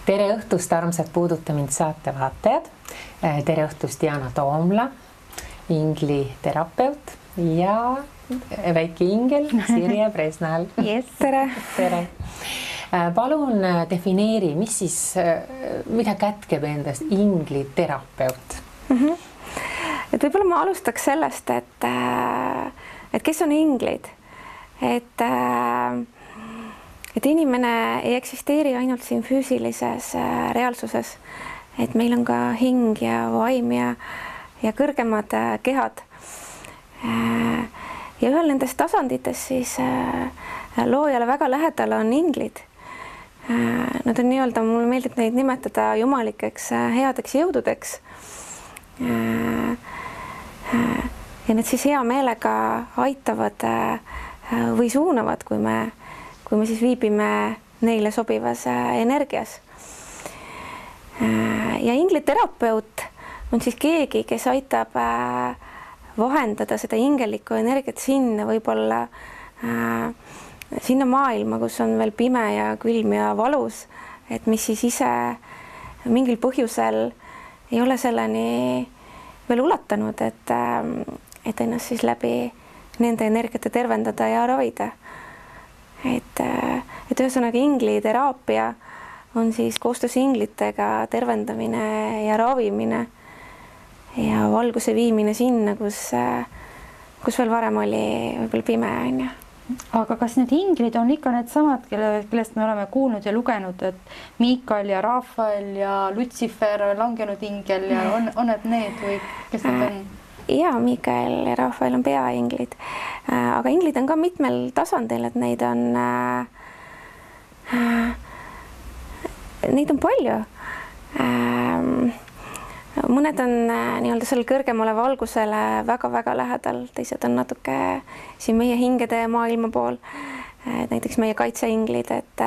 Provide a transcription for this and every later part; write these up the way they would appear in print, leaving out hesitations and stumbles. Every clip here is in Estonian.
Tere õhtust, armsad Puuduta mind saate vaatajad. Tere õhtust, Diana Toomla, ingli terapeut ja väike ingel Sirje Presnal. Yes, tere. Tere. Palun defineeri, mida kätkeb endast ingli terapeut? Et võib-olla ma alustaks sellest, et kes on inglid, et inimene ei eksisteeri ainult siin füüsilises reaalsuses, et meil on ka hing ja vaim ja kõrgemad kehad. Ja ühel nendest tasanditest siis loojale väga lähedal on inglid. Nad on nii-öelda, mulle meeldib neid nimetada jumalikeks headeks jõududeks. Ja need siis hea meelega aitavad või suunavad, kui me siis viibime neile sobivas energias. Ja ingliterapeut on siis keegi, kes aitab vahendada seda ingelikku energiat sinna võib-olla sinna maailma, kus on veel pime ja külm ja valus, et mis siis ise mingil põhjusel ei ole selleni veel ulatanud, et ennast siis läbi nende energiate tervendada ja ravida. Et ühesõnaga ingliteraapia on siis koostöös inglitega tervendamine ja ravimine ja valguse viimine sinna, kus veel varem oli võib-olla pime, on ju. Aga kas need inglid on ikka need samad, kellest me oleme kuulnud ja lugenud, et Miikael ja Rafael ja Lutsifer, langenud ingel ja on need või kes need on? Ja Miikael ja Rafael on peainglid, aga inglid on ka mitmel tasandil, et neid on palju. Mõned on nii-öelda selle kõrgemale valgusele väga-väga lähedal, teised on natuke siin meie hingede maailma pool, näiteks meie kaitseinglid, et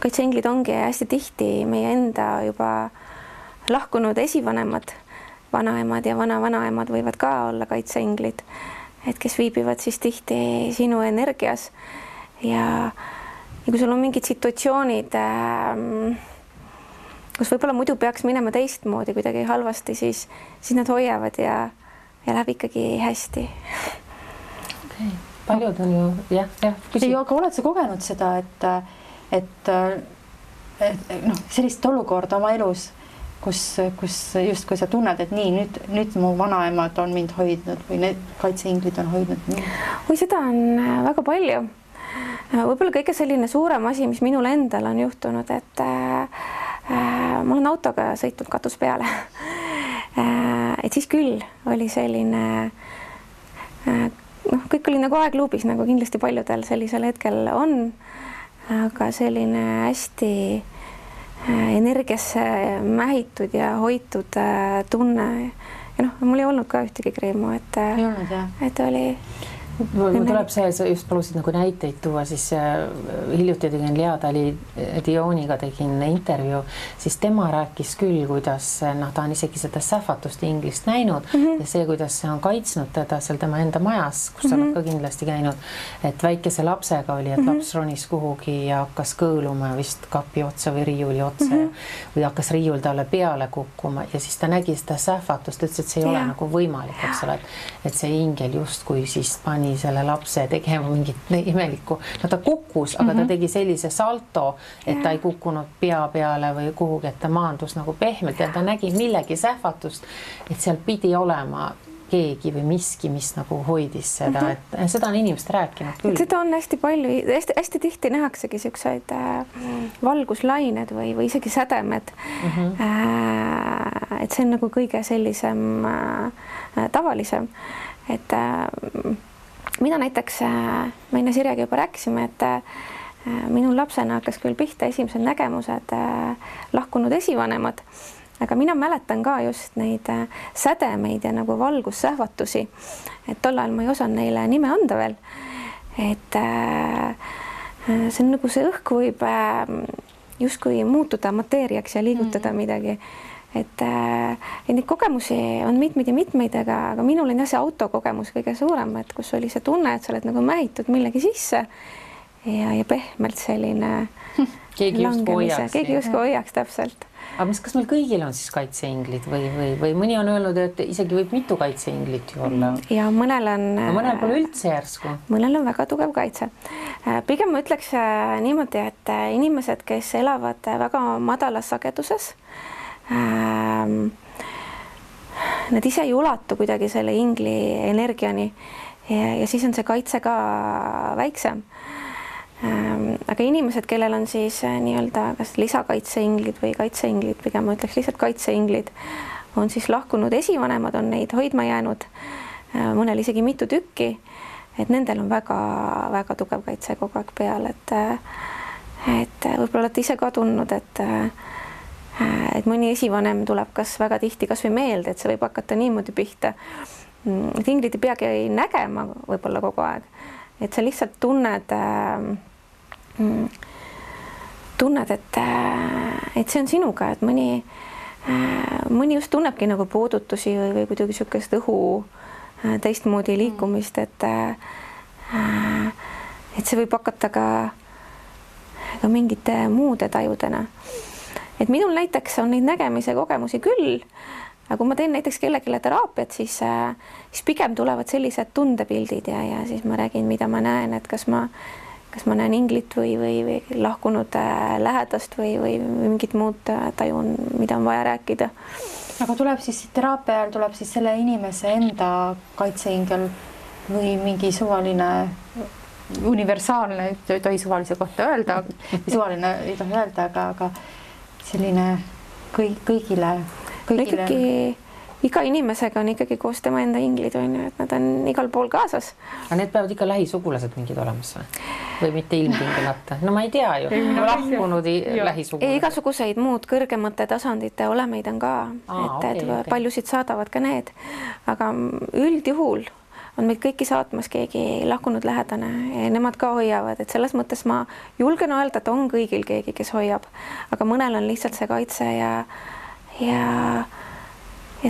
kaitseinglid ongi hästi tihti meie enda juba lahkunud esivanemad, vanaemad ja vana-vanaemad võivad ka olla kaitseinglid, et kes viibivad siis tihti sinu energias ja kui sul on mingid situatsioonid, kus võib-olla muidu peaks minema teistmoodi kuidagi halvasti, siis nad hoiavad ja läheb ikkagi hästi. Okay. Paljud on ju, jah. Aga oled sa kogenud seda, et sellist olukorda oma elus, kus just kui sa tunned, et nii, nüüd mu vanaemad on mind hoidnud või need kaitseinglid on hoidnud mind? Või seda on väga palju. Võib-olla kõige selline suurem asi, mis minul endal on juhtunud, et ma olen autoga sõitnud katus peale. Et siis küll oli selline, kõik oli nagu aegluubis, nagu kindlasti paljudel sellisel hetkel on, aga selline hästi energiasse mähitud ja hoitud tunne. Ja mul ei olnud ka ühtegi kreemu, et oli... Mul tuleb see, sa just palusid nagu näiteid tuua, siis hiljuti tegin Lea Dioniga tegin intervjuu, siis tema rääkis küll, kuidas ta on isegi seda sähvatust inglist näinud ja see, kuidas see on kaitsnud teda seal tema enda majas, kus sa oled ka kindlasti käinud, et väikese lapsega oli, et laps ronis kuhugi ja hakkas kõõluma vist kapi otsa või riiuli otsa või hakkas riiul talle peale kukkuma ja siis ta nägi seda sähvatust, ütles, et see ei ole nagu võimalik, eks ole, et see ingel justkui siis pani selle lapse tegema mingit imelikku. Ta kukkus, aga ta tegi sellise salto, et ta ei kukkunud pea peale või kuhugi, et ta maandus nagu pehmelt ja ta nägi millegi sähvatust, et seal pidi olema keegi või miski, mis nagu hoidis seda, et seda on inimesed rääkinud küll. Seda on hästi palju, hästi tihti nähaksegi selliseid valguslained või isegi sädemed. Et see on nagu kõige sellisem tavalisem, et mina näiteks, me enne Sirjega juba rääkisime, et minul lapsena hakkas küll pihta esimesed nägemused lahkunud esivanemad, aga mina mäletan ka just neid sädemeid ja nagu valgussähvatusi, et tol ajal ma ei osanud neile nime anda veel, et see on nagu see õhk võib justkui muutuda mateeriaks ja liigutada midagi. Et neid kogemusi on mitmeid ja mitmeid, aga minul on jah see autokogemus kõige suurem, et kus oli see tunne, et sa oled nagu mähitud millegi sisse ja pehmelt selline keegi justkui hoiaks täpselt. Aga kas meil kõigil on siis kaitseinglid või mõni on öelnud, et isegi võib mitu kaitseinglit ju olla? Ja mõnel pole üldse järsku. Mõnel on väga tugev kaitse. Pigem ma ütleks niimoodi, et inimesed, kes elavad väga madalas sageduses, nad ise ei ulatu kuidagi selle ingli energiani ja siis on see kaitse ka väiksem. Aga inimesed, kellel on siis nii-öelda kas lisakaitseinglid või kaitseinglid, pigem ma ütleks lihtsalt kaitseinglid, on siis lahkunud esivanemad, on neid hoidma jäänud, mõnel isegi mitu tükki, et nendel on väga-väga tugev kaitse kogu aeg peal, et võib-olla olete ise ka tundnud, et mõni esivanem tuleb kas väga tihti kas või meelde, et see võib hakata niimoodi pihta. Inglid ei peagi nägema võib-olla kogu aeg, et sa lihtsalt tunned, et see on sinuga, et mõni just tunnebki nagu puudutusi või kuidagi niisugust õhu teistmoodi liikumist, et see võib hakata ka mingite muude tajudena. Et minul näiteks on neid nägemise kogemusi küll, aga kui ma teen näiteks kellelegi teraapiat, siis pigem tulevad sellised tundepildid ja siis ma räägin, mida ma näen, et kas ma näen inglit või lahkunud lähedast või mingit muud tajun, mida on vaja rääkida. Aga tuleb siis teraapia ajal tuleb siis selle inimese enda kaitseingel või mingi suvaline universaalne, ei tohi suvalise kohta öelda, suvaline ei tohi öelda, aga selline kõigile. Ikkagi iga inimesega on ikkagi koos tema enda inglid, et nad on igal pool kaasas. Aga need peavad ikka lähisugulased mingid olemas või mitte ilmtingimata? No ma ei tea ju, lahkunud lähisugulased. Igasuguseid muud kõrgemate tasandite olemeid on ka, paljusid saadavad ka need, aga üldjuhul on meid kõiki saatmas keegi lahkunud lähedane ja nemad ka hoiavad, et selles mõttes ma julgen öelda, et on kõigil keegi, kes hoiab, aga mõnel on lihtsalt see kaitse ja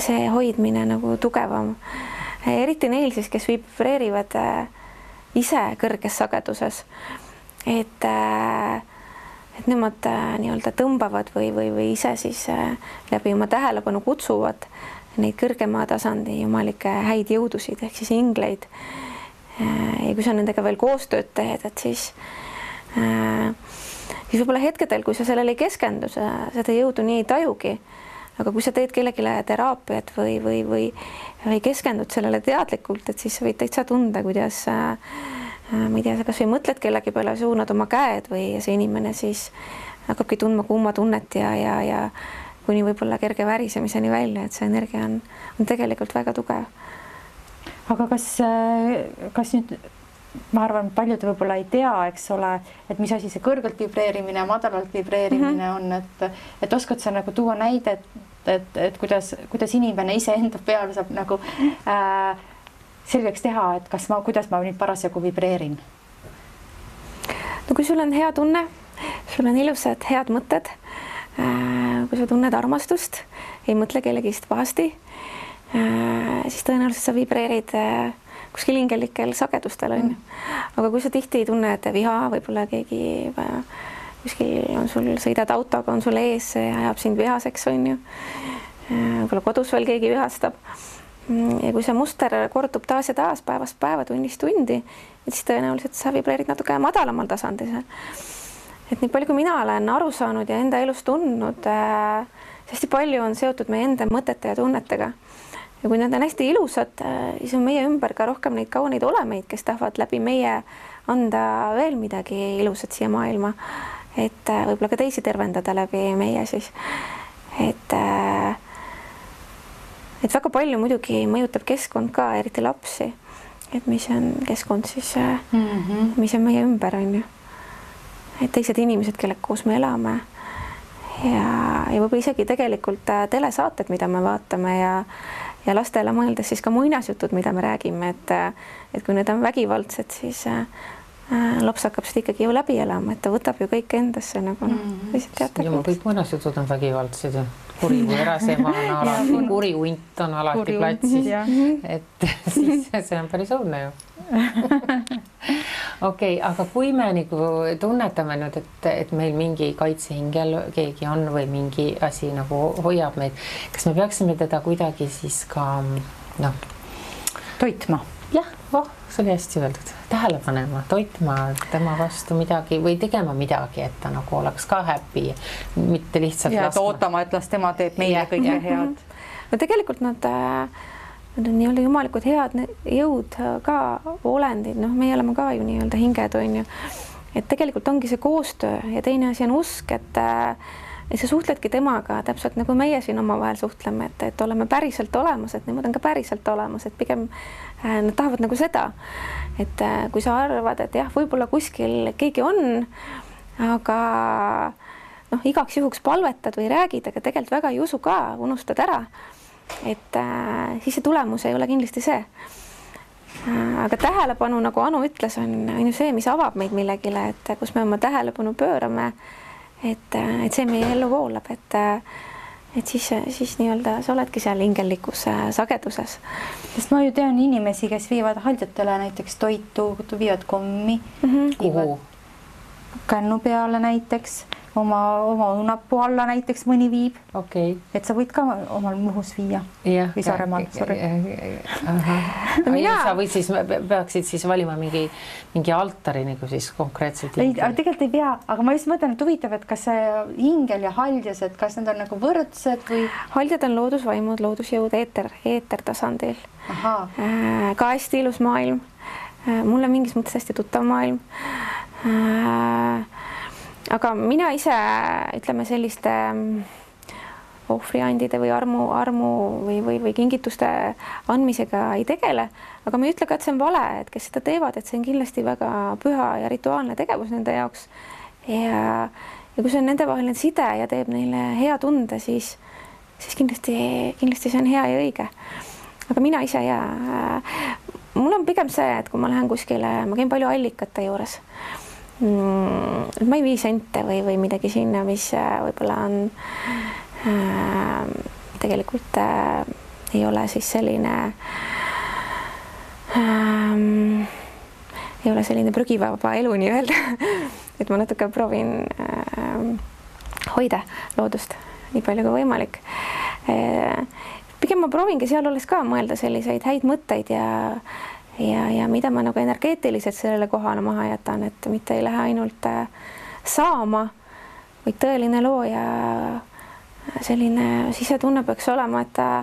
see hoidmine nagu tugevam. Eriti neil siis, kes vibreerivad ise kõrges sageduses, et nemad nii-öelda tõmbavad või ise siis läbi oma tähelepanu kutsuvad neid kõrgema tasandi jumalikke häid jõudusid ehk siis ingleid. Ja kui sa nendega veel koostööd teed, et siis võib-olla hetkedel, kui sa sellele ei keskendu, seda jõudu nii ei tajugi, aga kui sa teed kellelegi teraapiat või keskendud sellele teadlikult, et siis sa võid täitsa tunda, kuidas ma ei tea, sa kas või mõtled kellegi peale, suunad oma käed või see inimene siis hakkabki tundma kuuma tunnet ja kuni võib-olla kerge värisemiseni välja, et see energia on tegelikult väga tugev. Aga kas nüüd, ma arvan, paljud võib-olla ei tea, eks ole, et mis asi see kõrgelt vibreerimine ja madalalt vibreerimine on, et oskad sa nagu tuua näidet, et kuidas inimene ise enda peal saab nagu selgeks teha, et kuidas ma nüüd parasjagu vibreerin? No kui sul on hea tunne, sul on ilusad head mõtted, kui sa tunned armastust, ei mõtle kellegist pahasti, siis tõenäoliselt sa vibreerid kuskil hingelikel sagedustel on. Aga kui sa tihti tunned viha, võib-olla keegi kuskil on sul, sõidad autoga, on sul ees, see ajab sind vihaseks on ju. Võib-olla kodus veel keegi vihastab. Ja kui see muster kordub taas ja taas päevast päeva, tunnist tundi, siis tõenäoliselt sa vibreerid natuke madalamal tasandil. Et nii palju, kui mina olen aru saanud ja enda elus tundnud, hästi palju on seotud meie enda mõtete ja tunnetega. Ja kui need on hästi ilusad, siis on meie ümber ka rohkem neid kauneid olemeid, kes tahavad läbi meie anda veel midagi ilusat siia maailma. Et võib-olla ka teisi tervendada läbi meie siis. Et väga palju muidugi mõjutab keskkond ka, eriti lapsi. Et mis on keskkond siis, mis on meie ümber on ju. Et teised inimesed, kellega koos me elame ja võib-olla isegi tegelikult telesaated, mida me vaatame ja lastele mõeldes siis ka muinasjutud, mida me räägime, et kui need on vägivaldsed, siis laps hakkab seda ikkagi ju läbi elama, et ta võtab ju kõik endasse nagu kõik muinasjutud on vägivaldsed ja kurigu erasema on alati, kurihunt on alati platsis, et siis see on päris õudne ju. Okei, aga kui me nagu tunnetame nüüd, et meil mingi kaitsehingel keegi on või mingi asi nagu hoiab meid, kas me peaksime teda kuidagi siis ka toitma? Jah, see oli hästi öeldud. Tähele panema, toitma tema vastu midagi või tegema midagi, et ta nagu oleks ka happy, mitte lihtsalt ootama, et las tema teeb meile kõige head. No tegelikult nad on nii-öelda jumalikud head jõud ka olendid, meie oleme ka ju nii-öelda hinged, on ju. Et tegelikult ongi see koostöö ja teine asi on usk, et sa suhtledki temaga täpselt nagu meie siin omavahel suhtleme, et oleme päriselt olemas, et nemad on ka päriselt olemas, et pigem nad tahavad nagu seda, et kui sa arvad, et jah, võib-olla kuskil keegi on, aga igaks juhuks palvetad või räägid, aga tegelikult väga ei usu ka, unustad ära, et siis see tulemus ei ole kindlasti see. Aga tähelepanu, nagu Anu ütles, on ju see, mis avab meid millegile, et kus me oma tähelepanu pöörame, et see meie ellu voolab, et siis nii-öelda sa oledki seal hingellikus sageduses. Sest ma ju tean inimesi, kes viivad haldjatele näiteks toitu, viivad kommi, kuhu? Kännu peale näiteks, oma õunapuu alla näiteks mõni viib. Okay. Et sa võid ka omal Muhus viia. Või Saaremaal, sorry. Sa võid siis, peaksid siis valima mingi altari nagu siis konkreetselt. Tegelikult ei pea, aga ma just mõtlen, et huvitav, et kas see hingel ja haldjas, et kas need on nagu võrdsed või? Haldjad on loodusvaimud, loodusjõud eetertasandil. Ka hästi ilus maailm. Mulle mingis mõttes hästi tuttav maailm. Aga mina ise, ütleme selliste ohvriandide või armu või kingituste andmisega ei tegele, aga ma ei ütle ka, et see on vale, et kes seda teevad, et see on kindlasti väga püha ja rituaalne tegevus nende jaoks. Ja kui see on nende vaheline side ja teeb neile hea tunde, siis kindlasti see on hea ja õige. Aga mina ise mul on pigem see, et kui ma lähen kuskile, ma käin palju allikate juures. Ma ei vii sente või midagi sinna, mis võib-olla on tegelikult ei ole siis selline ei ole selline prügivaba elu nii-öelda. Et ma natuke proovin hoida loodust nii palju kui võimalik. Pigem ma proovingi seal olles ka mõelda selliseid häid mõtteid ja mida ma nagu energeetiliselt sellele kohale maha jätan, et mitte ei lähe ainult saama, vaid tõeline looja selline sisetunne peaks olema, et ta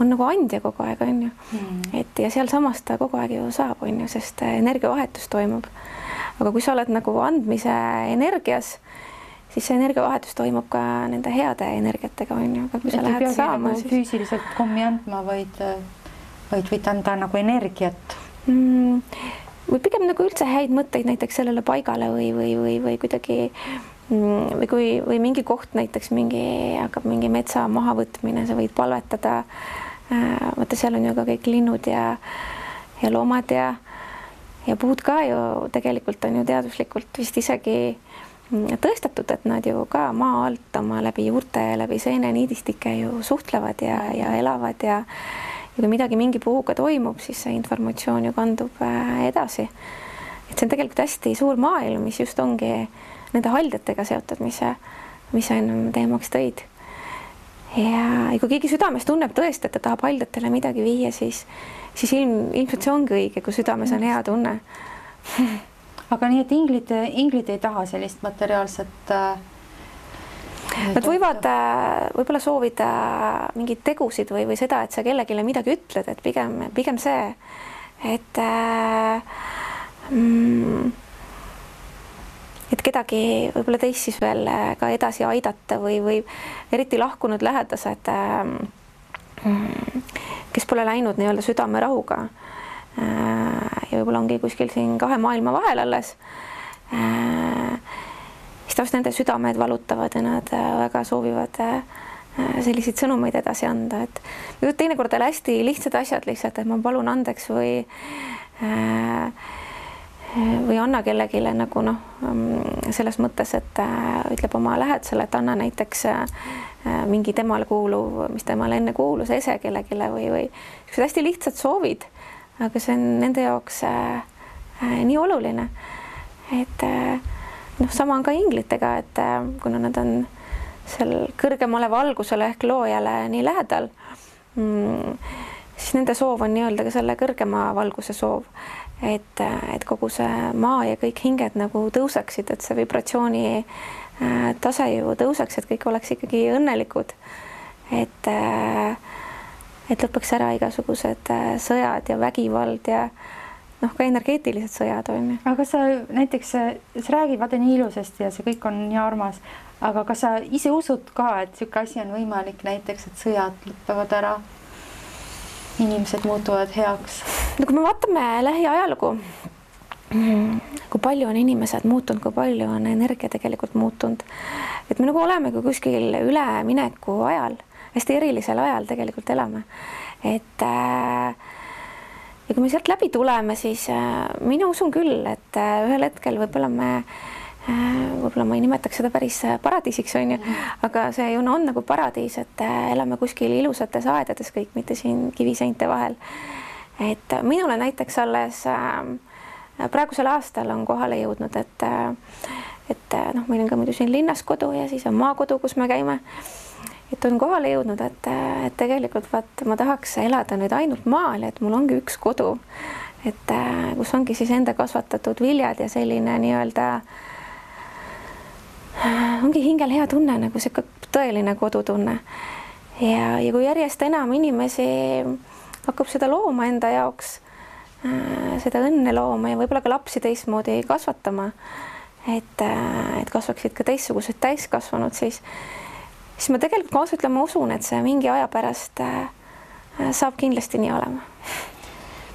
on nagu andja kogu aeg, on ju. Et ja seal samas ta kogu aeg ju saab, on ju, sest energiavahetus toimub. Aga kui sa oled nagu andmise energias, siis see energiavahetus toimub ka nende heade energiatega, on ju. Aga kui sa lähed saama, siis füüsiliselt kommi andma, vaid võid anda nagu energiat. Või pigem nagu üldse häid mõtteid näiteks sellele paigale või kuidagi või mingi koht näiteks hakkab mingi metsa mahavõtmine, sa võid palvetada. Vaata, seal on ju ka kõik linnud ja loomad ja puud ka ju tegelikult on ju teaduslikult vist isegi tõestatud, et nad ju ka maa alt oma läbi juurte ja läbi seeneniidistike ju suhtlevad ja elavad ja kui midagi mingi puhuga toimub, siis see informatsioon ju kandub edasi. Et see on tegelikult hästi suur maailm, mis just ongi nende haldjatega seotud, mis sa ennem teemaks tõid. Ja kui keegi südames tunneb tõesti, et ta tahab haldjatele midagi viia, siis ilmselt see ongi õige, kui südames on hea tunne. Aga nii, et inglid ei taha sellist materiaalset Nad võivad võib-olla soovida mingeid tegusid või seda, et sa kellegile midagi ütled, et pigem see, et kedagi võib-olla teist siis veel ka edasi aidata või eriti lahkunud lähedased, kes pole läinud nii-öelda südamerahuga ja võib-olla ongi kuskil siin kahe maailma vahel alles, siis taas nende südamed valutavad ja nad väga soovivad selliseid sõnumeid edasi anda, et teinekord on hästi lihtsad asjad lihtsalt, et ma palun andeks või anna kellegile nagu selles mõttes, et ütleb oma lähedasele, et anna näiteks mingi temale kuuluv, mis temale enne kuulus, ese kellegile või hästi lihtsad soovid, aga see on nende jaoks nii oluline, et noh, sama on ka inglitega, et kuna nad on seal kõrgemale valgusele ehk loojale nii lähedal, siis nende soov on nii-öelda ka selle kõrgema valguse soov, et kogu see maa ja kõik hinged nagu tõuseksid, et see vibratsiooni tase ju tõuseks, et kõik oleks ikkagi õnnelikud, et lõpeks ära igasugused sõjad ja vägivald ja noh, ka energeetilised sõjad on ju. aga sa näiteks, sa räägid vaata nii ilusasti ja see kõik on nii armas, aga kas sa ise usud ka, et niisugune asi on võimalik, näiteks, et sõjad lõpevad ära, inimesed muutuvad heaks? no kui me vaatame lähiajalugu, kui palju on inimesed muutunud, kui palju on energia tegelikult muutunud, et me nagu oleme kui kuskil ülemineku ajal, hästi erilisel ajal tegelikult elame, et ja kui me sealt läbi tuleme, siis mina usun küll, et ühel hetkel võib-olla ma ei nimetaks seda päris paradiisiks, on ju, aga see ju on nagu paradiis, et elame kuskil ilusates aedades kõik, mitte siin kiviseinte vahel. Et minule näiteks alles praegusel aastal on kohale jõudnud, et noh, meil on ka muidu siin linnas kodu ja siis on maakodu, kus me käime. Et on kohale jõudnud, et tegelikult vaat ma tahaks elada nüüd ainult maal, et mul ongi üks kodu, et kus ongi siis enda kasvatatud viljad ja selline nii-öelda ongi hingel hea tunne, nagu see tõeline kodutunne. Ja kui järjest enam inimesi hakkab seda looma enda jaoks, seda õnne looma ja võib-olla ka lapsi teistmoodi kasvatama, et kasvaksid ka teistsugused täiskasvanud, siis ma tegelikult kaasa ütlema usun, et see mingi aja pärast saab kindlasti nii olema.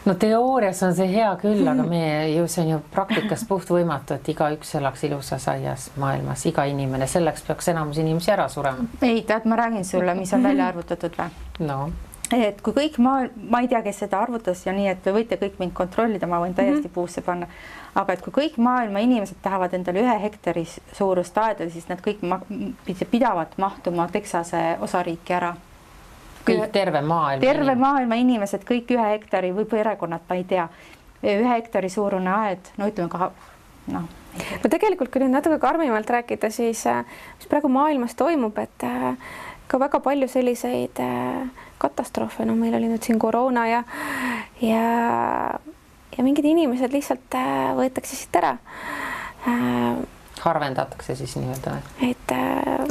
No teoorias on see hea küll, aga see on ju praktikas puht võimatu, et igaüks elaks ilusas aias maailmas, iga inimene, selleks peaks enamus inimesi ära surema. Ei, tead, ma räägin sulle, mis on välja arvutatud või? No. Et kui kõik ma ei tea, kes seda arvutas ja nii, et võite kõik mind kontrollida, ma võin täiesti puusse panna. Aga et kui kõik maailma inimesed tahavad endale 1 hektari suurust aeda, siis nad kõik pidavad mahtuma Texase osariiki ära. Kõik terve maailma inimesed, kõik 1 hektari või perekonnad, ma ei tea, 1 hektari suurune aed, no ütleme ka, noh. No tegelikult, kui nüüd natuke karmimalt rääkida, siis mis praegu maailmas toimub, et ka väga palju selliseid katastroofe, no meil oli nüüd siin koroona ja mingid inimesed lihtsalt võetakse siit ära. Harvendatakse siis nii-öelda. Et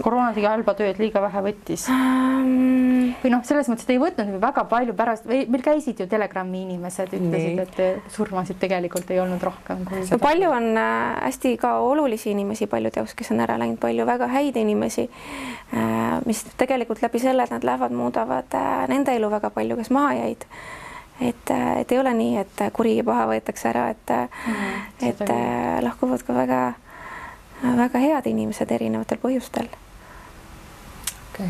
koroona tegi halba tööd, liiga vähe võttis. Või noh, selles mõttes, et ei võtnud väga palju pärast, meil käisid ju Telegrami inimesed, ütlesid, et surmasid tegelikult ei olnud rohkem. No palju on hästi ka olulisi inimesi paljude jaoks, kes on ära läinud, palju väga häid inimesi, mis tegelikult läbi selle, et nad lähevad, muudavad nende elu väga palju, kes maha jäid. Et ei ole nii, et kuri ja paha võetakse ära, et lahkuvad ka väga head inimesed erinevatel põhjustel. Okay.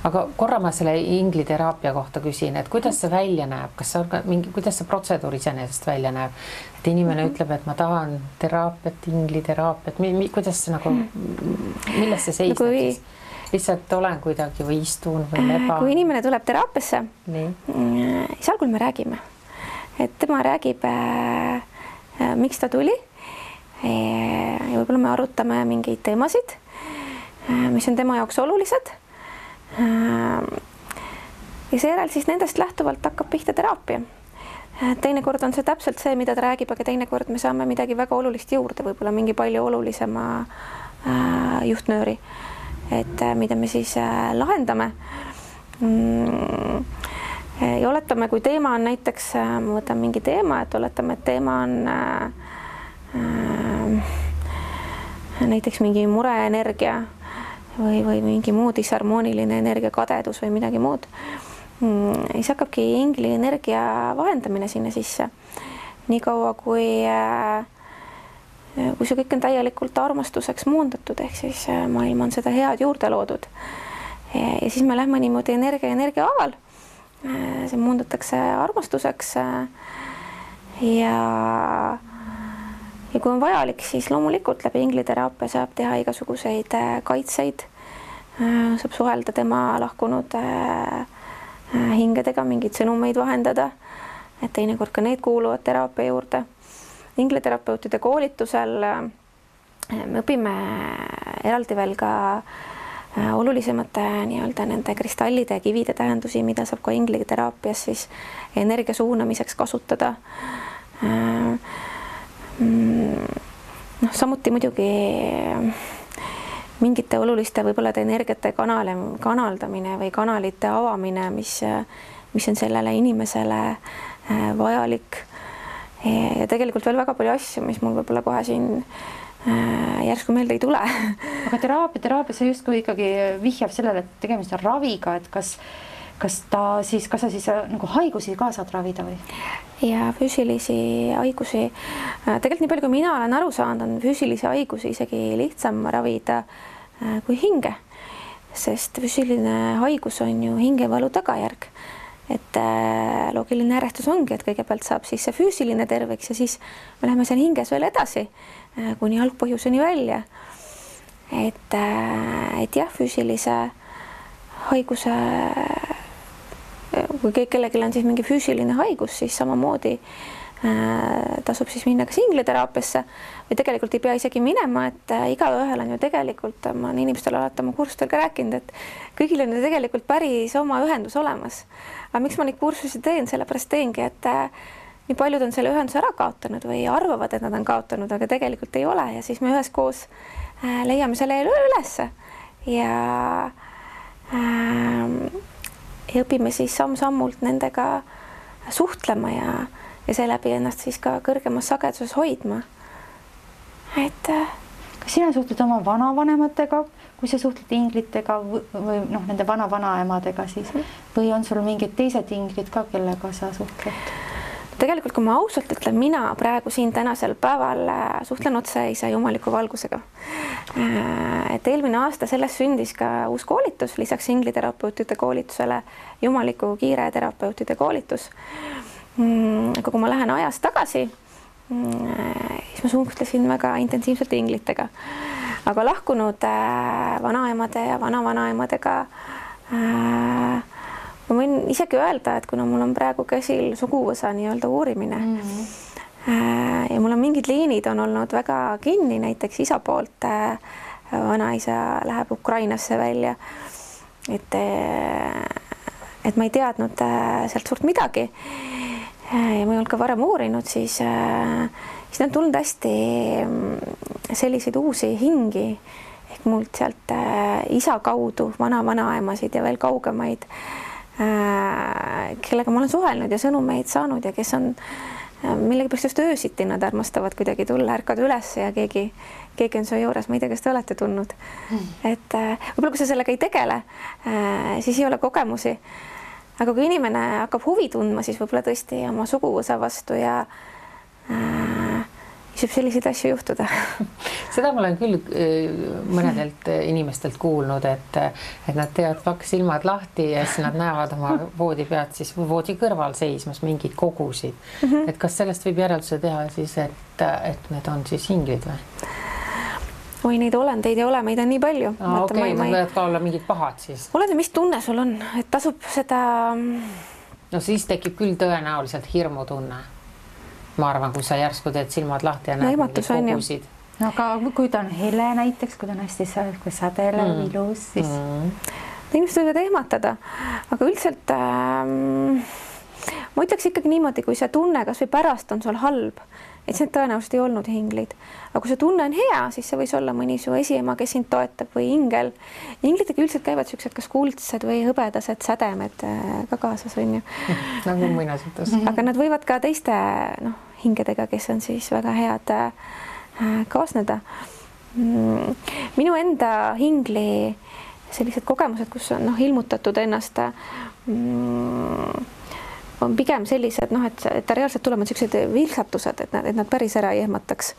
Aga korra ma selle ingliteraapia kohta küsin, et kuidas see välja näeb, kuidas see protseduur iseenesest välja näeb, et inimene ütleb, et ma tahan teraapiat, ingliteraapiat, kuidas see nagu, milles see seisneb siis? Lihtsalt olen kuidagi või istun või leba. Kui inimene tuleb teraapiasse, siis algul me räägime, et tema räägib, miks ta tuli ja võib-olla me arutame mingeid teemasid, mis on tema jaoks olulised. Ja seejärel siis nendest lähtuvalt hakkab pihta teraapia. Teinekord on see täpselt see, mida ta räägib, aga teinekord me saame midagi väga olulist juurde, võib-olla mingi palju olulisema juhtnööri. Et mida me siis lahendame. Ja oletame, kui teema on näiteks, ma võtan mingi teema, et oletame, et teema on näiteks mingi mureenergia või mingi muu disharmooniline energia, kadedus või midagi muud. Siis hakkabki ingli energia vahendamine sinna sisse. Nii kaua, kui see kõik on täielikult armastuseks muundatud, ehk siis maailm on seda head juurde loodud. Ja siis me lähme niimoodi energia aval. See muundatakse armastuseks. Ja kui on vajalik, siis loomulikult läbi ingliteraapia saab teha igasuguseid kaitseid. Saab suhelda tema lahkunud hingedega, mingeid sõnumeid vahendada. Et teinekord ka need kuuluvad teraapia juurde. ingleterapeutide koolitusel me õpime eraldi veel ka olulisemate nii-öelda nende kristallide ja kivide tähendusi, mida saab ka ingleteraapias siis energia suunamiseks kasutada. Samuti muidugi mingite oluliste võib-olla energiate kanaldamine või kanalite avamine, mis on sellele inimesele vajalik. Ja tegelikult veel väga palju asju, mis mul võib-olla kohe siin järsku meelde ei tule. Aga teraapia see justkui ikkagi vihjab sellele, et tegemist on raviga, et kas sa siis nagu haigusi ka saad ravida või? Ja füüsilisi haigusi, tegelikult nii palju, kui mina olen aru saanud, on füüsilisi haigusi isegi lihtsam ravida kui hinge, sest füüsiline haigus on ju hingevalu tagajärg. Et loogiline järjestus ongi, et kõigepealt saab siis see füüsiline terveks ja siis me läheme seal hinges veel edasi kuni algpõhjuseni välja. Et jah, füüsilise haiguse, kui kellelgi on siis mingi füüsiline haigus, siis samamoodi tasub siis minna kas ingleteraapiasse või tegelikult ei pea isegi minema, et igaühel on ju tegelikult, ma olen inimestele alati oma kursustel ka rääkinud, et kõigil on ju tegelikult päris oma ühendus olemas. Aga miks ma neid kursusi teen? Sellepärast teengi, et nii paljud on selle ühenduse ära kaotanud või arvavad, et nad on kaotanud, aga tegelikult ei ole ja siis me üheskoos leiame selle ülesse ja õpime siis samm-sammult nendega suhtlema ja seeläbi ennast siis ka kõrgemas sageduses hoidma. Kas sina suhtled oma vanavanematega, kui sa suhtled inglitega või nende vana-vanaemadega siis, või on sul mingid teised inglid ka, kellega sa suhtled? Tegelikult, kui ma ausalt ütlen, mina praegu siin tänasel päeval suhtlen otse isa jumaliku valgusega. Et eelmine aasta sellest sündis ka uus koolitus, lisaks ingliterapeutide koolitusele jumaliku kiire terapeutide koolitus. Aga kui ma lähen ajas tagasi, siis ma suhtlesin väga intensiivselt inglitega. Aga lahkunud vanaemade ja vanavanaemadega ma võin isegi öelda, et kuna mul on praegu käsil suguvõsa nii-öelda uurimine ja mul on mingid liinid on olnud väga kinni, näiteks isa poolt vanaisa läheb Ukrainasse välja, et ma ei teadnud sealt suurt midagi ja ma ei olnud ka varem uurinud, siis on tulnud hästi selliseid uusi hingi ehk mult sealt isa kaudu vana-vanaemasid ja veel kaugemaid, kellega ma olen suhelnud ja sõnumeid saanud ja kes on millegipärast just öösiti, nad armastavad kuidagi tulla, ärkad üles ja keegi on su juures, ma ei tea, kas te olete tundnud. Et võib-olla kui sa sellega ei tegele, siis ei ole kogemusi. Aga kui inimene hakkab huvi tundma, siis võib-olla tõesti oma suguvõsa vastu ja saab selliseid asju juhtuda. Seda ma olen küll mõnedelt inimestelt kuulnud, et nad teevad paks silmad lahti ja siis nad näevad oma voodi pealt siis voodi kõrval seismas mingeid kogusid. Et kas sellest võib järelduse teha siis, et need on siis hinglid või? Oi, neid olendeid ei ole, meid on nii palju. Okei, nad võivad ka olla mingid pahad siis. Oled, mis tunne sul on, et tasub seda... No siis tekib küll tõenäoliselt hirmutunne. Ma arvan, kui sa järsku teed silmad lahti ja näed mingid kogusid. No, aga kui ta on hele näiteks, kui ta on hästi sädelev, ilus, siis... Inimesed võivad ehmatada, aga üldiselt ma ütleks ikkagi niimoodi, kui see tunne kas või pärast on sul halb, et see tõenäoliselt ei olnud hinglid. Aga kui see tunne on hea, siis see võis olla mõni su esiema, kes sind toetab või ingel. Inglitega üldiselt käivad sellised kas kuldsed või hõbedased sädemed ka kaasas on ju. Nagu muinasjutus. Aga nad võivad ka teiste hingedega, kes on siis väga head kaasneda. Minu enda hingli sellised kogemused, kus on ilmutatud ennast on pigem sellised, et ta reaalselt tulevad sellised vilksatused, et nad päris ära ei ehmataks.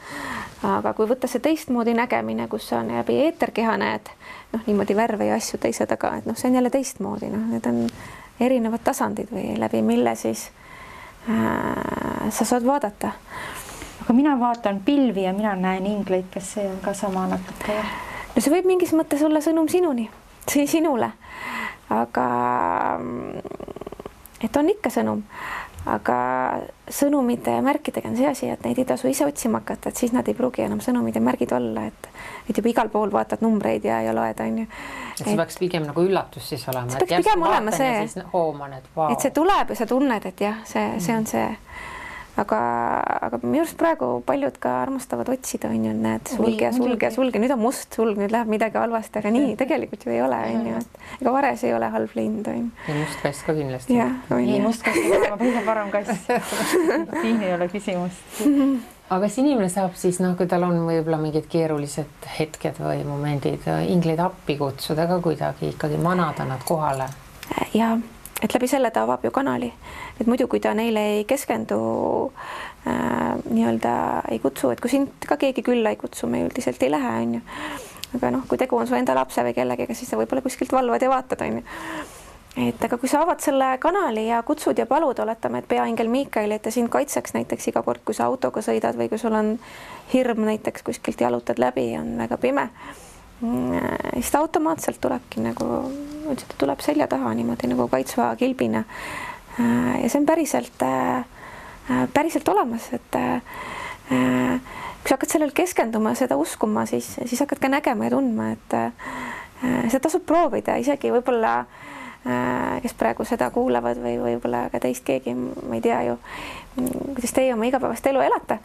Aga kui võtta see teistmoodi nägemine, kus on läbi eeterkeha näed, niimoodi värve ja asju teise taga, et see on jälle teistmoodi, need on erinevad tasandid või läbi mille siis sa saad vaadata. Aga mina vaatan pilvi ja mina näen ingleid, kes see on ka sama natuke. No see võib mingis mõttes olla sõnum sinule, aga et on ikka sõnum, aga sõnumite ja märkidega on see asi, et neid ei tasu ise otsima hakata, et siis nad ei pruugi enam sõnumid ja märgid olla, et juba igal pool vaatad numbreid ja loed, on ju. Et see peaks pigem nagu üllatus siis olema. See peaks pigem olema see, hooman, et see tuleb ja sa tunned, et jah, see on see. Aga minu arust praegu paljud ka armastavad otsida, on ju, näed, sulge, nüüd on must sulg, nüüd läheb midagi halvasti, aga nii tegelikult ju ei ole, on ju, et ega vares ei ole halb lind, on ju. Ja must kass ka kindlasti. Ei, must kass ei ole kõige parem kass. Siin ei ole küsimust. Aga kas inimene saab siis, kui tal on võib-olla mingid keerulised hetked või momendid, ingleid appi kutsuda ka kuidagi ikkagi manada nad kohale? Ja et läbi selle ta avab ju kanali, et muidu kui ta neile ei keskendu, nii-öelda ei kutsu, et kui sind ka keegi külla ei kutsu, me üldiselt ei lähe, on ju. Aga kui tegu on su enda lapse või kellegiga, siis sa võib-olla kuskilt valvad ja vaatad, on ju. Et aga kui sa avad selle kanali ja kutsud ja palud, oletame, et peaingel Miikael, et ta sind kaitseks näiteks iga kord, kui sa autoga sõidad või kui sul on hirm näiteks kuskilt jalutad läbi, on väga pime, siis ta automaatselt tulebki nagu, ta tuleb selja taha niimoodi nagu kaitsva kilbina. Ja see on päriselt olemas, et kui sa hakkad sellel keskenduma, seda uskuma, siis hakkad ka nägema ja tundma, et seda tasub proovida, isegi võib-olla kes praegu seda kuulavad või võib-olla ka teist keegi, ma ei tea ju, kuidas teie oma igapäevast elu elate.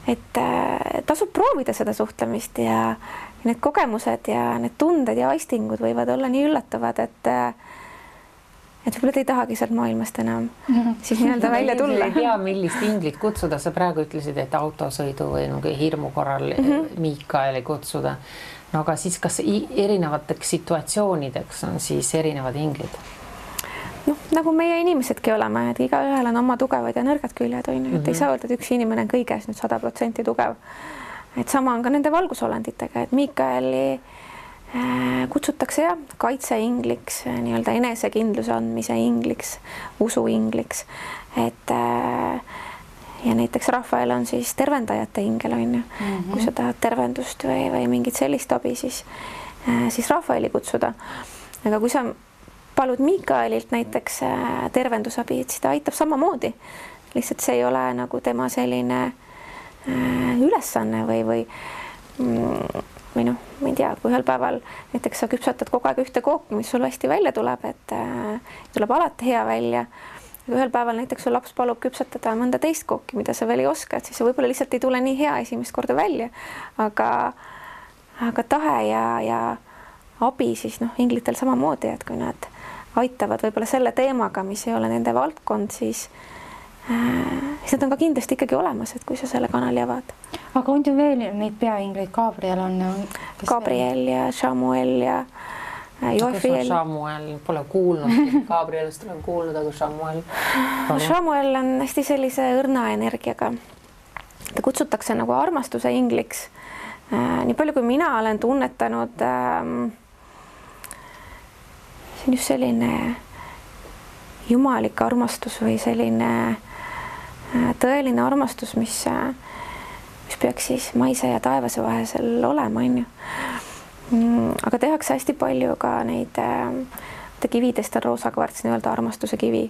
Et tasub proovida seda suhtlemist ja need kogemused ja need tunded ja aistingud võivad olla nii üllatavad, et võib-olla te ei tahagi sealt maailmast enam siis nii-öelda välja tulla. Ei tea, millist inglit kutsuda. Sa praegu ütlesid, et autosõidu või hirmu korral Miikaeli kutsuda. No aga siis kas erinevateks situatsioonideks on siis erinevad inglid? Nagu meie inimesedki oleme, et igaühel on oma tugevad ja nõrgad küljed, on ju, et ei saa öelda, et üks inimene on kõiges nüüd 100% tugev. Et sama on ka nende valgusolenditega, et Miikaeli kutsutakse kaitseingliks, nii-öelda enesekindluse andmise ingliks, usu ingliks, et ja näiteks Rafael on siis tervendajate ingel, on ju. Kui sa tahad tervendust või mingit sellist abi, siis Rafaeli kutsuda. Aga kui sa palud Miikaelilt näiteks tervendusabi, et siis ta aitab samamoodi. Lihtsalt see ei ole nagu tema selline ülesanne või ma ei tea, kui ühel päeval näiteks sa küpsatad kogu aeg ühte kooki, mis sul hästi välja tuleb, et tuleb alati hea välja. Ühel päeval näiteks su laps palub küpsatada mõnda teist kooki, mida sa veel ei oska, et siis võib-olla lihtsalt ei tule nii hea esimest korda välja. Aga tahe ja abi siis inglitel samamoodi, et kui nad aitavad võib-olla selle teemaga, mis ei ole nende valdkond, siis nad on ka kindlasti ikkagi olemas, et kui sa selle kanali avad. Aga on ju veel neid peaingleid, Gabriel on? Gabriel ja Samuel ja Joafiel. Samuel pole kuulnud, Gabrielist olen kuulnud, aga Samuel? Samuel on hästi sellise õrna energiaga. Ta kutsutakse nagu armastuse ingliks. Nii palju, kui mina olen tunnetanud, see on just selline jumalik armastus või selline tõeline armastus, mis peaks siis maise ja taevase vahel olema, on ju. Aga tehakse hästi palju ka neid kividest on roosakvarts, nii-öelda armastuse kivi.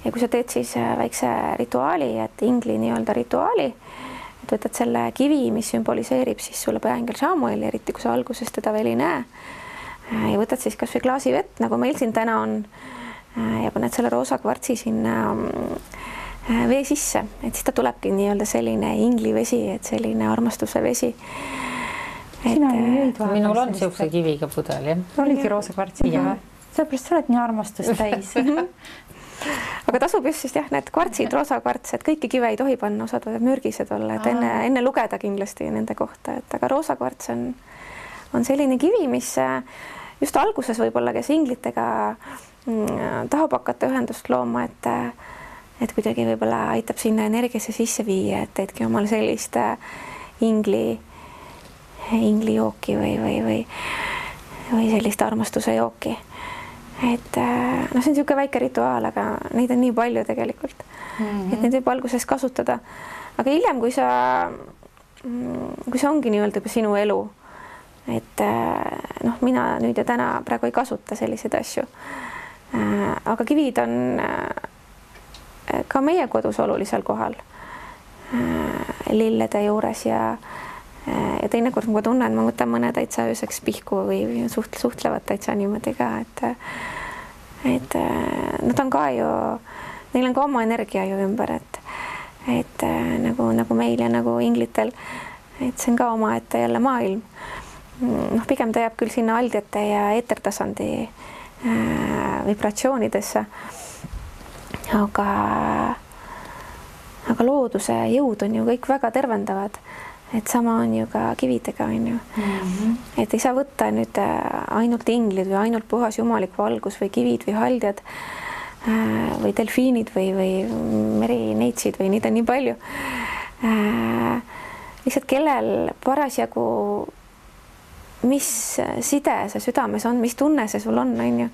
Ja kui sa teed siis väikse rituaali, et ingli nii-öelda rituaali, et võtad selle kivi, mis sümboliseerib siis sulle peaingel Samuel, eriti kui sa alguses teda veel ei näe, ja võtad siis kas või klaasi vett, nagu meil siin täna on, ja paned selle roosakvartsi sinna vee sisse, et siis ta tulebki nii-öelda selline inglivesi, et selline armastuse vesi. Minul on siukse kiviga pudel, jah? Oligi roosakvartsiga. Sellepärast sa oled nii armastust täis. Aga tasub just siis need kvartsid, roosakvarts, et kõiki kive ei tohi panna, osad võivad mürgised olla, et enne lugeda kindlasti nende kohta, et aga roosakvarts on selline kivi, mis just alguses võib-olla, kes inglitega tahab hakata ühendust looma, et kuidagi võib-olla aitab sinna energiasse sisse viia, et teedki omal sellist inglijooki või sellist armastuse jooki. Et see on niisugune väike rituaal, aga neid on nii palju tegelikult, et neid võib alguses kasutada. Aga hiljem, kui see ongi nii-öelda juba sinu elu, et mina nüüd ja täna praegu ei kasuta selliseid asju. aga kivid on ka meie kodus olulisel kohal lillede juures ja teinekord ma tunnen, ma võtan mõne täitsa ööseks pihku või suhtlevad täitsa niimoodi ka, et nad on ka ju, neil on ka oma energia ju ümber, et nagu meil ja nagu inglitel, et see on ka omaette jälle maailm. Noh, pigem ta jääb küll sinna aldjate ja eetertasandi vibratsioonidesse, aga looduse jõud on ju kõik väga tervendavad, et sama on ju ka kividega, on ju. Et ei saa võtta nüüd ainult inglid või ainult puhas jumalik valgus või kivid või haldjad või delfiinid või merineitsid või neid on nii palju. Lihtsalt kellel parasjagu, mis side see südames on, mis tunne see sul on ju.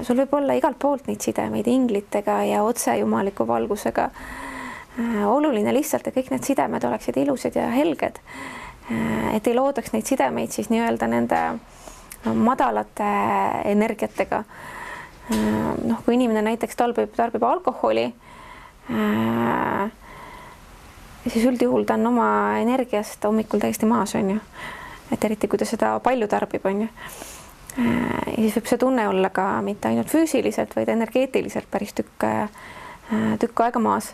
Sul võib olla igalt poolt neid sidemeid inglitega ja otse jumaliku valgusega. Oluline lihtsalt, et kõik need sidemed oleksid ilusad ja helged, et ei loodaks neid sidemeid siis nii-öelda nende madalate energiatega. Noh, kui inimene näiteks tarbib alkoholi, siis üldjuhul ta on oma energiast hommikul täiesti maas, on ju. Et eriti, kui ta seda palju tarbib, on ju. Ja siis võib see tunne olla ka mitte ainult füüsiliselt, vaid energeetiliselt päris tükk aega maas.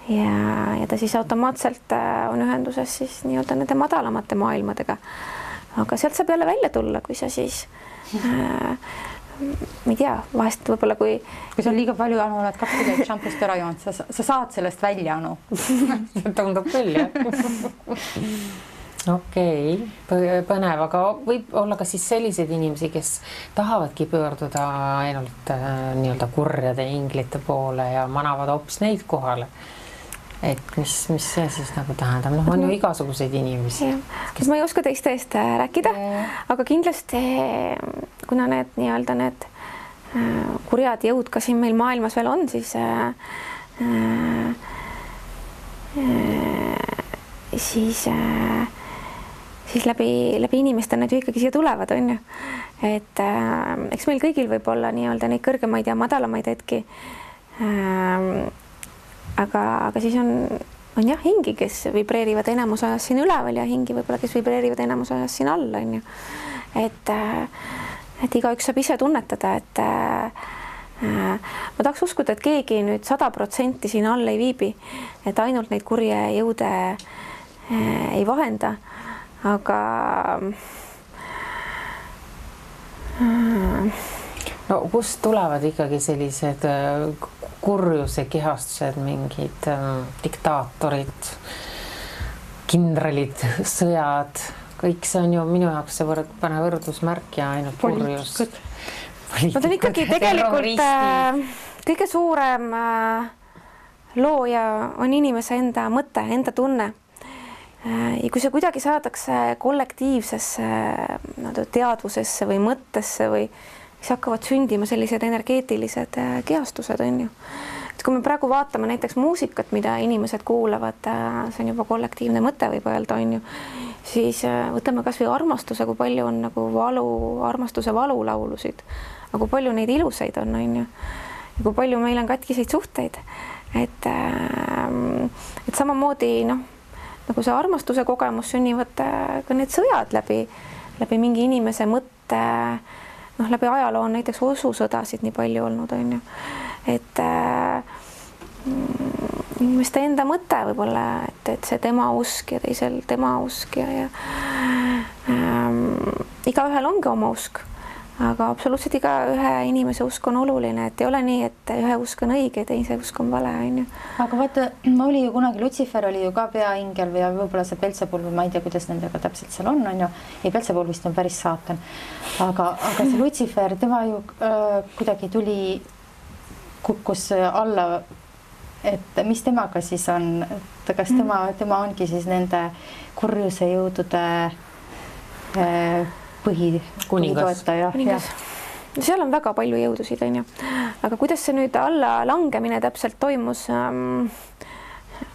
Ja ta siis automaatselt on ühenduses siis nii-öelda nende madalamate maailmadega. Aga sealt saab jälle välja tulla, kui sa siis ma ei tea, vahest võib-olla kui sa on liiga palju, Anu, oled 2 kilomeetrit šampust ära joonud, sa saad sellest välja, Anu. Tundub küll, jah. Okei, põnev, aga võib olla ka siis selliseid inimesi, kes tahavadki pöörduda ainult nii-öelda kurjade inglite poole ja manavad hoopis neid kohale. Et mis see siis nagu tähendab? Noh, on ju igasuguseid inimesi. Ma ei oska teiste eest rääkida, aga kindlasti kuna need nii-öelda need kurjad jõud ka siin meil maailmas veel on, siis läbi inimeste need ju ikkagi siia tulevad, on ju. Et eks meil kõigil võib olla nii-öelda neid kõrgemaid ja madalamaid hetki. Aga siis on jah hingi, kes vibreerivad enamus ajas siin üleval ja hingi võib-olla, kes vibreerivad enamus ajas siin all, on ju. Et igaüks saab ise tunnetada, et ma tahaks uskuda, et keegi nüüd 100% siin all ei viibi, et ainult neid kurje jõude ei vahenda, aga no kust tulevad ikkagi sellised kurjuse kehastused, mingid diktaatorid, kindralid, sõjad, kõik see on ju minu jaoks see pane võrdusmärk ja ainult kurjus. Nad on ikkagi tegelikult kõige suurem looja on inimese enda mõte, enda tunne. Ja kui see kuidagi saadakse kollektiivsesse teadvusesse või mõttesse või siis hakkavad sündima sellised energeetilised kehastused, on ju. Et kui me praegu vaatame näiteks muusikat, mida inimesed kuulavad, see on juba kollektiivne mõte võib öelda, on ju, siis võtame kas või armastuse, kui palju on nagu armastuse valulaulusid, aga kui palju neid ilusaid on ju, ja kui palju meil on katkiseid suhteid, et samamoodi nagu see armastuse kogemus sünnivad ka need sõjad läbi mingi inimese mõtte, läbi ajaloo on näiteks osusõdasid nii palju olnud, on ju. Et inimeste enda mõte võib-olla, et see tema usk ja teisel tema usk ja igaühel ongi oma usk, aga absoluutselt iga ühe inimese usk on oluline, et ei ole nii, et ühe usk on õige ja teise usk on vale, on ju. Aga vaata, oli ju kunagi Lutsifer oli ju ka peaingel või võib-olla see Belzebul, ma ei tea, kuidas nendega täpselt seal on ju. Ei, Belzebul vist on päris saatan. Aga see Lutsifer, tema ju kuidagi kukkus alla, et mis temaga siis on, et kas tema ongi siis nende kurjuse jõudude põhitoetaja. Seal on väga palju jõudusid, on ju. Aga kuidas see nüüd alla langemine täpselt toimus, ma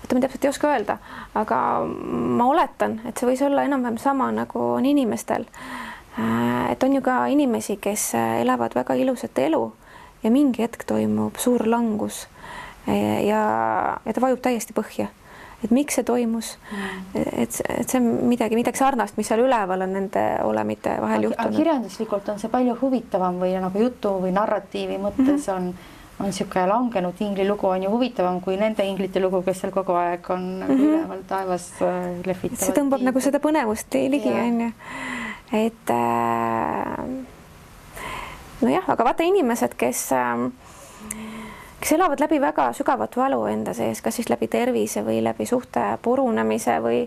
täpselt ei oska öelda, aga ma oletan, et see võis olla enam-vähem sama nagu on inimestel. Et on ju ka inimesi, kes elavad väga ilusat elu ja mingi hetk toimub suur langus ja ta vajub täiesti põhja. Et miks see toimus, et see on midagi sarnast, mis seal üleval on nende olemite vahel juhtunud. Kirjanduslikult on see palju huvitavam või nagu jutu või narratiivi mõttes on niisugune langenud ingli lugu on ju huvitavam kui nende inglite lugu, kes seal kogu aeg on üleval taevas lehvitavad. See tõmbab nagu seda põnevust ligi, on ju. Et nojah, aga vaata inimesed, kes elavad läbi väga sügavat valu enda sees, kas siis läbi tervise või läbi suhte purunemise või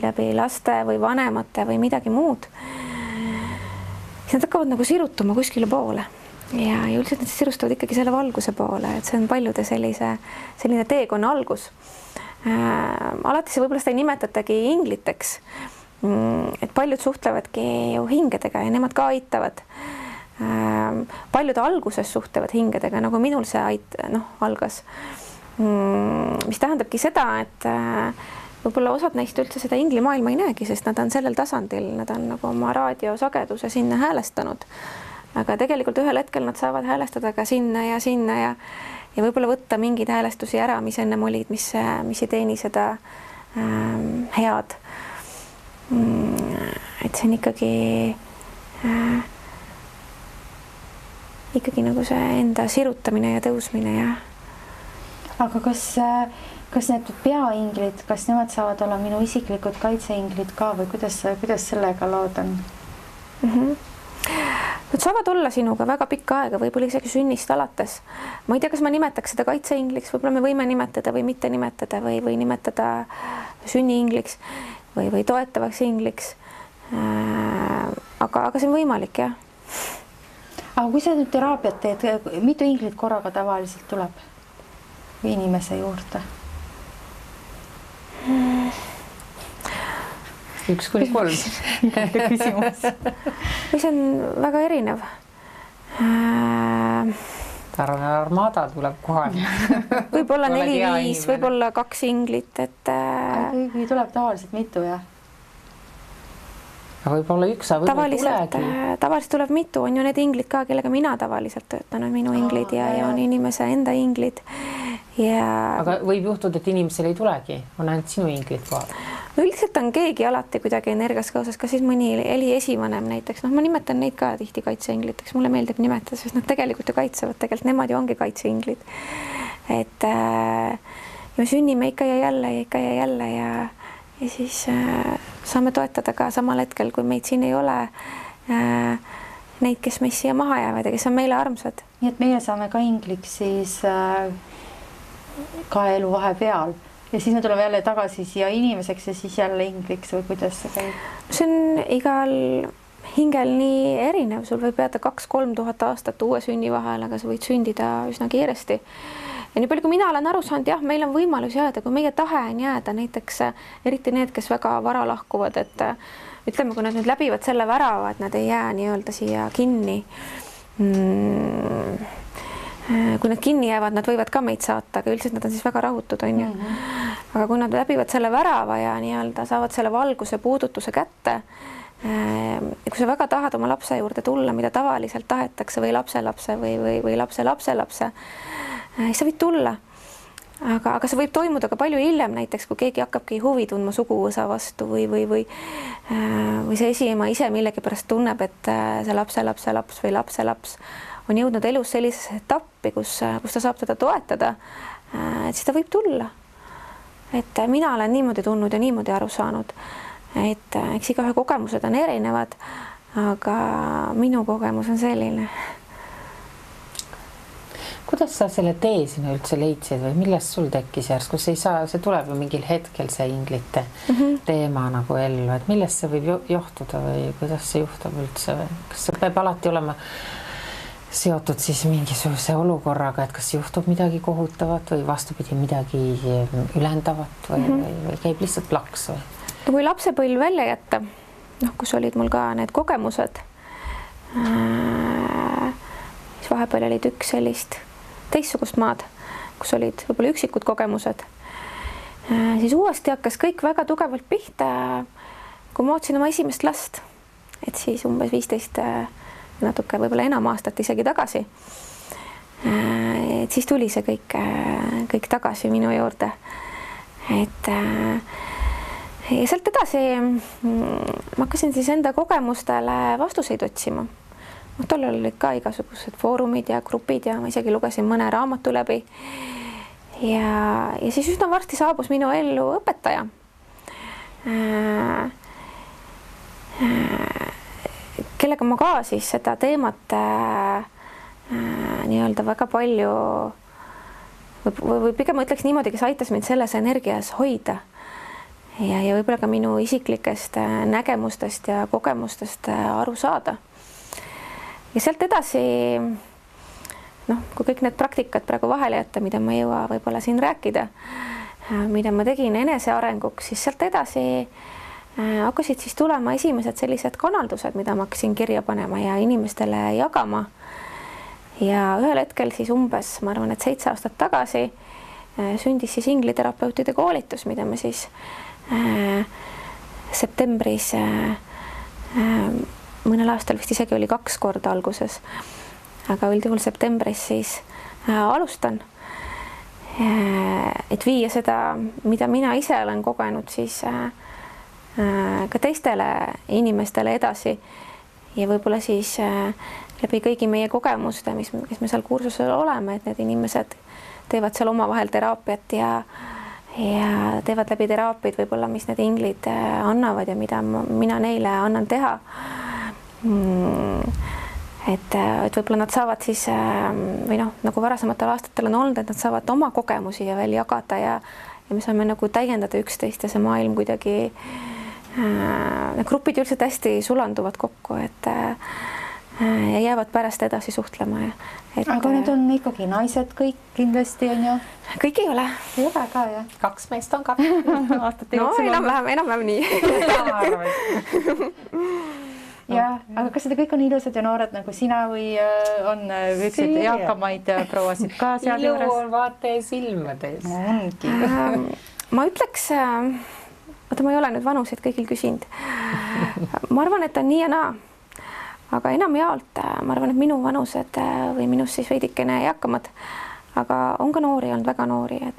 läbi laste või vanemate või midagi muud. Siis nad hakkavad nagu sirutuma kuskile poole ja üldiselt nad sirustavad ikkagi selle valguse poole, et see on paljude selline teekonna algus. Alati see võib-olla seda ei nimetatagi ingliteks, et paljud suhtlevadki ju hingedega ja nemad ka aitavad. Paljud alguses suhtlevad hingedega, nagu minul see algas, mis tähendabki seda, et võib-olla osad neist üldse seda inglimaailma ei näegi, sest nad on sellel tasandil, nad on nagu oma raadiosageduse sinna häälestanud, aga tegelikult ühel hetkel nad saavad häälestada ka sinna ja võib-olla võtta mingeid häälestusi ära, mis ennem olid, mis ei teeni seda head. Et see on ikkagi nagu see enda sirutamine ja tõusmine ja. Aga kas need peainglid, kas nemad saavad olla minu isiklikud kaitseinglid ka või kuidas sellega lood on? Nad saavad olla sinuga väga pikka aega, võib-olla isegi sünnist alates. Ma ei tea, kas ma nimetaks seda kaitseingliks, võib-olla me võime nimetada või mitte nimetada või nimetada sünniingliks või toetavaks ingliks. Aga see on võimalik, jah. Aga kui sa nüüd teraapiat teed, mitu inglit korraga tavaliselt tuleb inimese juurde? 1-3. Küsimus. See on väga erinev. Armada tuleb kohale. Võib-olla 4-5, võib-olla 2 inglit. Kui tuleb tavaliselt mitu, jah? Võib-olla üks, aga tavaliselt tuleb mitu, on ju need inglid ka, kellega mina tavaliselt töötan, on minu inglid ja on inimese enda inglid. Aga võib juhtuda, et inimesel ei tulegi, on ainult sinu inglid kohal? Üldiselt on keegi alati kuidagi energias kaasas, ka siis mõni Eli esivanem näiteks, ma nimetan neid ka tihti kaitseingliteks, mulle meeldib nimetada, sest nad tegelikult ju kaitsevad, tegelikult nemad ju ongi kaitseinglid. Et me sünnime ikka ja jälle ja siis saame toetada ka samal hetkel, kui meid siin ei ole, neid, kes meist siia maha jäävad ja kes on meile armsad. Nii et meie saame ka ingliks siis ka elu vahepeal ja siis me tuleme jälle tagasi siia inimeseks ja siis jälle ingliks või kuidas see käib? See on igal hingel nii erinev, sul võib jääda 2-3 tuhat aastat uue sünni vahel, aga sa võid sündida üsna kiiresti. Ja nii palju, kui mina olen aru saanud, jah, meil on võimalus jääda, kui meie tahe on jääda, näiteks eriti need, kes väga vara lahkuvad, et ütleme, kui nad nüüd läbivad selle värava, et nad ei jää nii-öelda siia kinni. Kui nad kinni jäävad, nad võivad ka meid saata, aga üldiselt nad on siis väga rahutud, on ju. Aga kui nad läbivad selle värava ja nii-öelda saavad selle valguse puudutuse kätte, kui sa väga tahad oma lapse juurde tulla, mida tavaliselt tahetakse või lapselapse või lapse, siis sa võid tulla, aga see võib toimuda ka palju hiljem, näiteks kui keegi hakkabki huvi tundma suguvõsa vastu või see esiema ise millegipärast tunneb, et see lapselaps või lapselaps on jõudnud elus sellisesse etappi, kus ta saab teda toetada, et siis ta võib tulla. Et mina olen niimoodi tundnud ja niimoodi aru saanud, et eks igaühe kogemused on erinevad, aga minu kogemus on selline. Kuidas sa selle tee sinna üldse leidsid või millest sul tekkis järsku? See tuleb ju mingil hetkel see inglite teema nagu ellu, et millest see võib johtuda või kuidas see juhtub üldse? Kas see peab alati olema seotud siis mingisuguse olukorraga, et kas juhtub midagi kohutavat või vastupidi midagi ülendavat või käib lihtsalt plaks või? Kui lapsepõlv välja jätta, kus olid mul ka need kogemused, siis vahepeal olid üks sellist teistsugust maad, kus olid võib-olla üksikud kogemused, siis uuesti hakkas kõik väga tugevalt pihta, kui ma ootsin oma esimest last, et siis umbes 15 natuke võib-olla enam aastat isegi tagasi. Et siis tuli see kõik tagasi minu juurde. Et ja sealt edasi ma hakkasin siis enda kogemustele vastuseid otsima. Tollal olid ka igasugused foorumid ja grupid ja ma isegi lugesin mõne raamatu läbi. Ja siis üsna varsti saabus minu ellu õpetaja. Kellega ma ka siis seda teemat nii-öelda väga palju või pigem ma ütleks niimoodi, kes aitas mind selles energias hoida ja võib-olla ka minu isiklikest nägemustest ja kogemustest aru saada. Ja sealt edasi, kui kõik need praktikad praegu vahele jätta, mida ma ei jõua võib-olla siin rääkida, mida ma tegin enesearenguks, siis sealt edasi hakkasid siis tulema esimesed sellised kanaldused, mida ma hakkasin kirja panema ja inimestele jagama. Ja ühel hetkel siis umbes, ma arvan, et 7 aastat tagasi sündis siis ingliterapeutide koolitus, mida me siis septembris, mõnel aastal vist isegi oli 2 korda alguses, aga üldjuhul septembris siis alustan, et viia seda, mida mina ise olen kogenud, siis ka teistele inimestele edasi ja võib-olla siis läbi kõigi meie kogemuste, kes me seal kursusel oleme, et need inimesed teevad seal omavahel teraapiat ja teevad läbi teraapiaid võib-olla, mis need inglid annavad ja mida mina neile annan teha. Et võib-olla nad saavad siis või nagu varasematel aastatel on olnud, et nad saavad oma kogemusi ja veel jagada ja me saame nagu täiendada üksteist ja see maailm kuidagi need grupid üldiselt hästi sulanduvad kokku, et ja jäävad pärast edasi suhtlema. Aga need on ikkagi naised kõik kindlasti on ju? Kõik ei ole. Ei ole ka, jah? 2 meest on ka. No enam-vähem nii. Ja, aga kas seda kõik on ilusad ja noored nagu sina või on üksid eakamaid prouasid ka seal juures? Ilu on vaata silmades. Ma ütleks, ma ei ole nüüd vanuseid kõigil küsinud. Ma arvan, et on nii ja naa. Aga enamjaolt ma arvan, et minu vanused või minust siis veidikene eakamad, aga on ka noori olnud, väga noori, et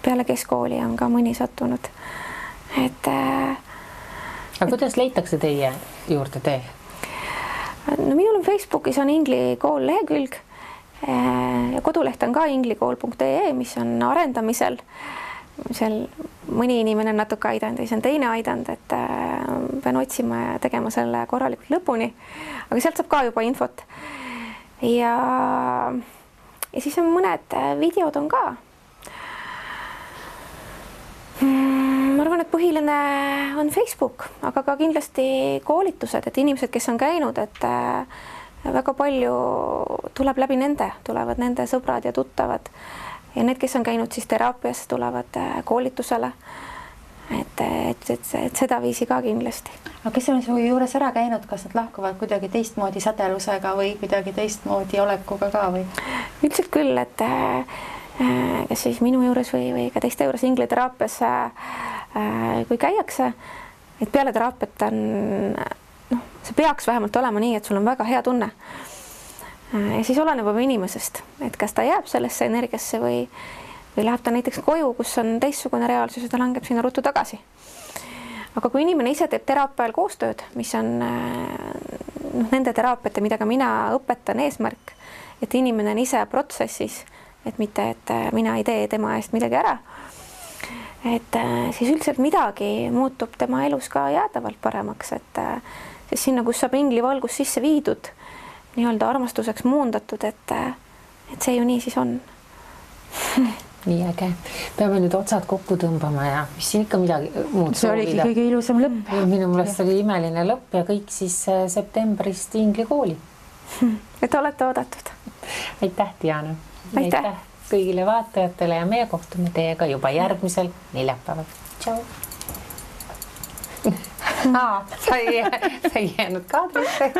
peale keskkooli on ka mõni sattunud. Aga kuidas leitakse teie juurde tee? No minul on Facebookis on Ingli kool lehekülg ja koduleht on ka inglikool.ee, mis on arendamisel. Seal mõni inimene on natuke aidanud ja see on teine aidanud, et pean otsima ja tegema selle korralikult lõpuni. Aga sealt saab ka juba infot. Ja siis on mõned videod on ka. Ma arvan, et põhiline on Facebook, aga ka kindlasti koolitused, et inimesed, kes on käinud, et väga palju tuleb läbi nende, tulevad nende sõbrad ja tuttavad. Ja need, kes on käinud siis teraapias, tulevad koolitusele, et seda viisi ka kindlasti. Aga kes on su juures ära käinud, kas nad lahkuvad kuidagi teistmoodi sädelusega või kuidagi teistmoodi olekuga ka või? Üldiselt küll, et kes siis minu juures või ka teiste juures ingliteraapias, kui käiakse, et peale teraapiat on, see peaks vähemalt olema nii, et sul on väga hea tunne. Ja siis oleneb juba inimesest, et kas ta jääb sellesse energiasse või läheb ta näiteks koju, kus on teistsugune reaalsus ja ta langeb sinna ruttu tagasi. Aga kui inimene ise teeb teraapial koostööd, mis on nende teraapiate, mida ka mina õpetan eesmärk, et inimene on ise protsessis, et mitte, et mina ei tee tema eest midagi ära, et siis üldiselt midagi muutub tema elus ka jäädavalt paremaks, et siis sinna, kus saab ingli valgus sisse viidud, nii-öelda armastuseks muundatud, et see ju nii siis on. Nii äge. Peame nüüd otsad kokku tõmbama ja mis siin ikka midagi muud soovida. See oligi kõige ilusam lõpp. Minu meelest oli imeline lõpp ja kõik siis septembrist ingli kooli. Et olete oodatud. Aitäh, Diana. Aitäh kõigile vaatajatele ja meie kohtume teiega juba järgmisel neljapäeval. Tšau. Sa ei jäänud kaadrisse.